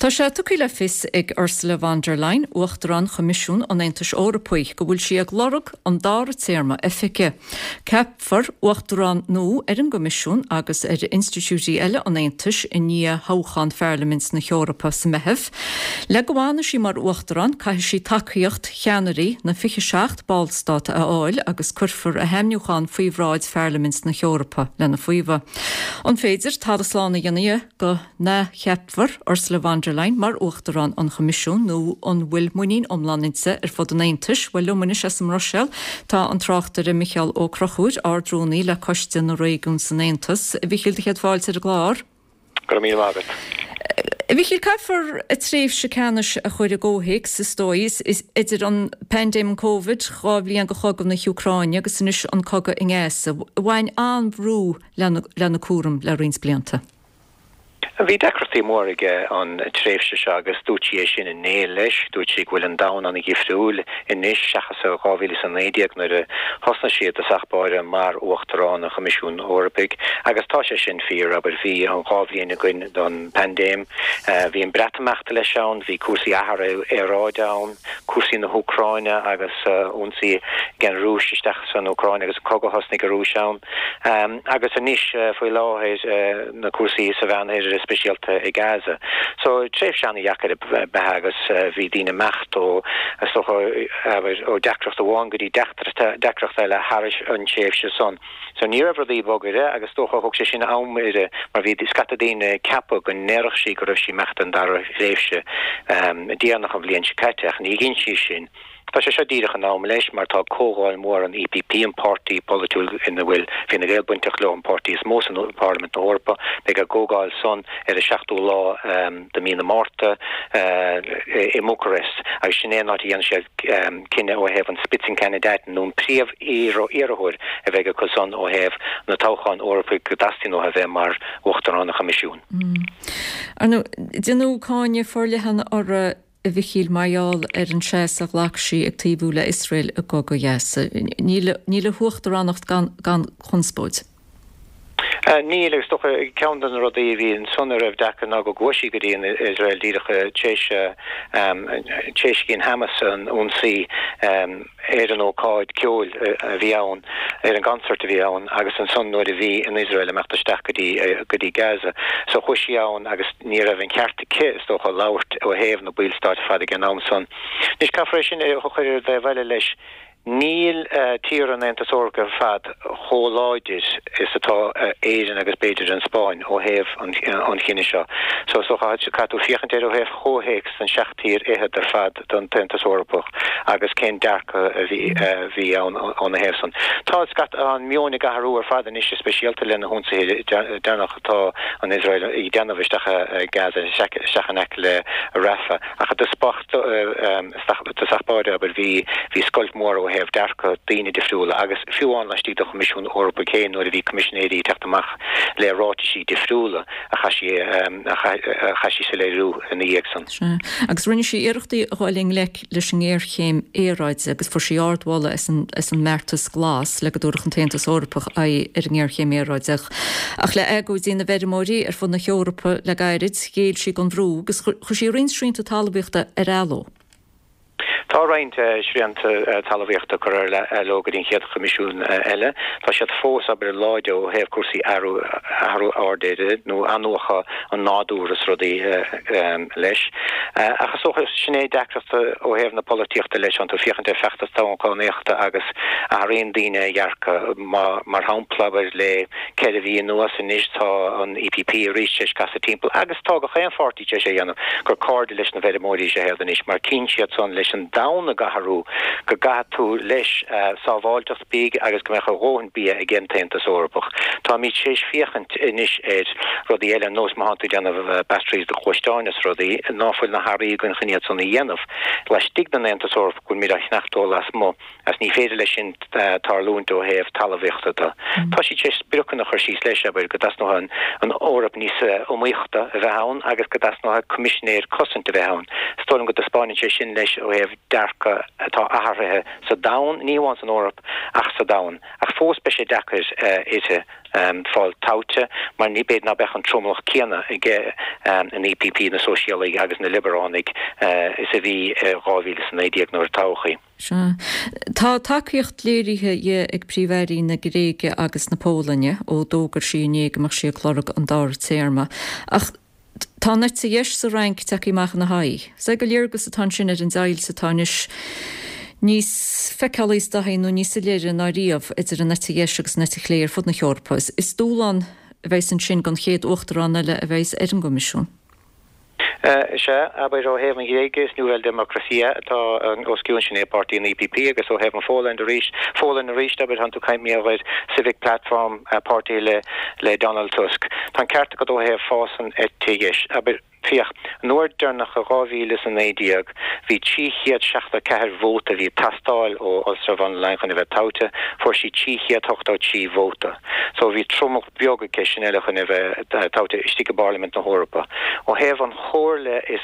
Tá sé tugtha le fios ag Ursula von der Leyen, Uachtarán Choimisiún an Aontais Eorpaigh, go bhfuil sí ag lorg an dara téarma oifige. Ceapfar Uachtarán nua ar an gCoimisiún agus ar institiúidí eile an Aontais i ndiaidh thoghchán Pharlaimint na hEorpa sa Meitheamh. Le go bhfanfaidh sí mar Uachtarán, caithfidh sí tacaíocht cheannairí na 27 ballstát a fháil agus cuirfear a hainmniúchán faoi bhráid Pharlaimint na hEorpa lena faomhadh. An féidir talamh slán a dhéanamh de go n-athcheapfar Ursula von der Leyen mar Uachtarán an Choimisiúin nó an bhfuil muinín iomlán inti ar fud an Aontais? Bhuel, liom anois as an mBruiséil tá an tráchtaire Micheál Ó Conchúir, Ard-Rúnaí le Coiste na Réigiún san Aontas. A Mhichíl, do chéad fáilte ar an gclár. Go raibh míle maith agat. A Mhichíl, caithfear a tréimhse ceannais a chur i gcomhthéacs, is dóigh, idir an paindéim an Covid, 2 bhliain de chogadh na hÚcráine agus anois an cogadh i nGaza. Bhain an-bhrú lena cúram le roinnt blianta. Bhí deacrachtaí móra aige an tréimhse seo agus dúirt sí é sin inné leis. Dúirt sí go bhfuil an domhan an-dhifriúil anois seachas i 2019 nuair a thosnaigh sí i dtosach báire mar Uachtarán an Choimisiúin Eorpaigh agus tá sé sin fíor, abair, bhí an 2 bhliain againn don bpaindéim, bhí an Breatimeacht leis ann, bhí cúrsaí athrú aeráide ann, cúrsaí na hÚcráine agus ionsaí ag an Rúis isteach san Úcráin agus an cogadh a thosnaigh an Rúis ann. Agus anois faoi láthair na cúrsaí sa Mheánoirthear is speisialta i Gaza. So tréimhse an-dheacair ab ea agus bhí daoine ag imeacht ó is dócha abair ó deacracht amháin go dtí deacracht eile thar an tréimhse san. So ní raibh rudaí bog uirthi agus is dócha thóg sé sin am uirthi mar bhí scata daoine ag ceapadh go ndéarfadh sí go raibh sí ag imeacht don dara thréimhse déanach an bhliain seo caite ach ní dhein sí sin. Tá sé seo díreach in am leis mar tá comhdháil mhór an EPP, an páirtí polaitiúil ina bhfuil Fine Gael bainteach leo, an páirtí is mó san Pharlaimint na hEorpa. Beidh a gcomhdháil san ar an 7ú lá de mhí na Márta i mBucarest agus sin é an áit a dhéanfaidh siad cinneadh ó thaobh an Spitzenkandidaten nó an príomh-iarrthóir a bheidh acu san ó thaobh na toghcháin Eorpaigh go dteastaíonn uathu a bheith mar Uachtarán an Choimisiúin. Ar ndóigh, déanadh cáineadh forleathan uirthi a Mhichíl, mar gheall ar an seasamh a ghlac sí ag taobhú le Iosrael i gcogadh Ghaza. Níl níl a huachtaránacht gan gan chonspóid. Níl, agus is dócha ceann de na rudaí a bhí ansan a raibh deacair ná go gcuaigh sí go dtí an Iosrael díreach tar éis tar éis dhein Hamas an ionsaí ar an ócáid ceoil a bhí ann, ar an gconcert a bhí ann agus ansan nuair a bhí an Iosrael ag imeacht isteach go dtí go dtí Gaza. So chuaigh sí ann agus ní raibh an ceart aici, is dócha, labhairt ó thaobh na ballstáit ar fad ag an am san. Anois caithfear é sin a chur ar an dtaobh eile leis. Níl tíortha an Aontais Eorpaigh ar fad chomh láidir is atá Éirinn agus b'fhéidir an Spáinn ó thaobh an chinnidh seo. So is dócha caithfidh tú féachaint air ó thaobh chomhthéacs den seacht tír fhichead ar fad den tAontas Eorpach agus cén dearcadh a bhí ann óna thaobh san. Tá an meon ag athrú ar fad anois, go speisialta le na hionsaithe deireanacha atá an Iosrael ag déanamh isteach i Gaza, isteach in aice le Rafah. Ach i dtosach báire, abair, bhí bhí scoilt mhór ó thaobh dearcadh daoine difriúla agus fiú amháin laistigh den Choimisiún Eorpaigh féin nuair a bhí coimisinéirí ag teacht amach le ráitisí difriúla a chaith sí a chaith sí soiléiriú ina dhiaidh san. Sea. Agus rinne sí iarrachtaí a dhul i ngleic leis an ngéarchéim aeráide agus fuair sí ardmholadh as an as an mbeartas glas le go dtabharfadh an tAontas Eorpach aghaidh ar an ngéarchéim aeráide. Ach le agóidí na bhfeirmeoirí ar fud na hEorpa le gairid, ghéill sí don bhrú agus chuir sí roinnt srianta talmhaíochta ar athló. Tá roinnt srianta talmhaíochta curtha ar athló go dtí an chéad Choimisiún eile. Tá siad fós, abair, láidir ó thaobh cúrsaí athrú athrú aeráide nó athnuachan an nádúr is rudaí leis. Ach is dócha, sin é deacracht ó thaobh na polaitíochta leis, tánn tú ag féachaint ar feachtas toghchánaíochta agus athraíonn daoine a dhearcadh. Mar shampla, abair, le 4 mhí anuas anois tá an EPP arís tar éis casadh timpeall agus tá gach aon pháirtí, tar éis é a dhéanamh, gur cairde leis na bhfeirmeoirí is ea iad anois mar tchíonn siad san leis an domhan ag athrú go gcaithfidh tú leis sábháilteacht bídh agus go mbeadh a dhóthain bia ag an tAontas Eorpach. Táimid tar éis féachaint anois ar rudaí eile ar nós má thánn tú ag déanamh batteries do ghluaisteáin is rudaí ná fuil na hearraí againn chun iad san a dhéanamh laistigh den Aontas Eorpach go bhfuilimid á cheannacht ó lasmuigh. Agus ní féidir leis sin tarlúint ó thaobh talmhaíochta de. Tá siad tar éis spriocanna a chur síos leis, abair, go dteastóidh an Eoraip níos iomaíochta a bheith ann agus go dteastóidh coimisinéir cosaint a bheith ann. Is dóigh liom go dtaispeánann sé sin leis ó thaobh. dearcadh atá athraithe sa domhan, ní hamháin san Eoraip ach sa domhan. Ach fós beidh sé deacair uirthi fáil toghte mar ní b'fhéidir ná beadh an tromlach céanna aige an EPP, na Sóisialaigh agus na Liobaránaigh, is a bhí i 2019 nuair a toghadh í. Sea. Tá tacaíocht léirithe di ag Príomh-Airí na Gréige agus na Polainne ó d'fhógair sí inné go mbeadh sí ag lorg an dara téarma. Ach tá an eite dheis sa Fhrainc tagtha amach ina haghaidh. Is é go léargas atá ansin ar an deighilt atá anois níos feiceálaí is dóichí nó níos soiléire ná riamh idir an eite dheis agus an eite chlé ar fud na hEorpa. Is dúshlán a bheas ansin don chéad uachtarán eile a bheas ar an gCoimisiún. Is ea, abair, ó thaobh an Ghréige, is Nuova Democrazia atá os cionn, sin é páirtí an EPP, agus ó thaobh an Pholainn arís, Pholainn arís, abair, tánn tú ag caint mar gheall ar Civic Platform, páirtí le le Donald Tusk. Tá an ceart agat ó thaobh fás an eite dheis, abair, féach, an uair deireanach i 2019, bhí 374 vóta a bhí ag teastáil ó Ursula von der Leyen chun a bheith toghte, fuair sí 383 vóta. So bhí tromlach beag aici sin eile chun a bheith toghte istigh i bParlaimint na hEorpa. Ó thaobh an Chomhairle is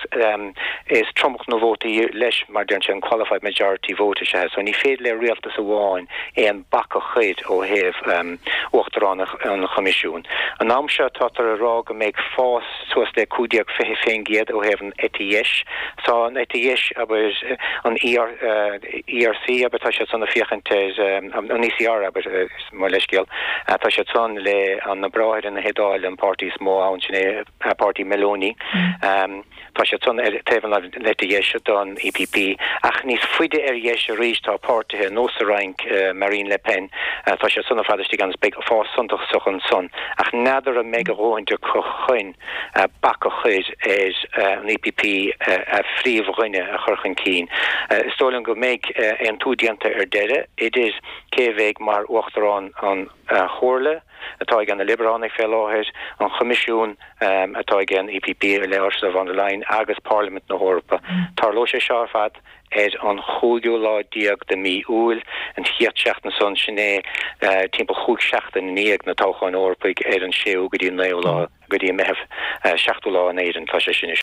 is tromlach na vótaí leis mar deireann sé an qualified majority vote is ea so ní féidir le rialtas amháin aon bac a chuir ó thaobh Uachtarán an Choimisiúin. An am seo tátar ag rá go mbeidh fás suas le 15 20% ó thaobh an eite dheis. Tá an eite dheis abair an ERC abair tá siad san ag féachaint ar an ECR abair mo leithscéal. Tá siad san le na Bráithre na hIodáile, an páirtí is mó ann, sin é páirtí Meloni. Tá siad san ar taobh an eite dheis don EPP. Ach níos faide ar dheis arís tá páirtithe nós sa Fhrainc, Marine Le Pen, tá siad san ar fad istigh ann is beidh fás suntasach ansan. Ach n'fheadar an mbeidh a dhóthain acu chun bac a chur ar an EPP a phríomhdhuine a chur chun cinn. Is dóigh liom go mbeidh aontú déanta ar deireadh idir cé a bheidh mar Uachtarán an Chomhairle, atá ag na Liobaránaigh fé láthair, an Choimisiún, atá ag an EPP le Ursula von der Leyen, agus Parlaimint na hEorpa. Tarlóidh sé seo ar fad ar an chúigiú lá déag de mhí Iúil, an chéad seachtain san, sin é timpeall chúig seachtain i ndiaidh na toghcháin Eorpaigh ar an séú go dtí an naoú lá go dtí an Meitheamh, seachtú lá in Éirinn, tá sé sin.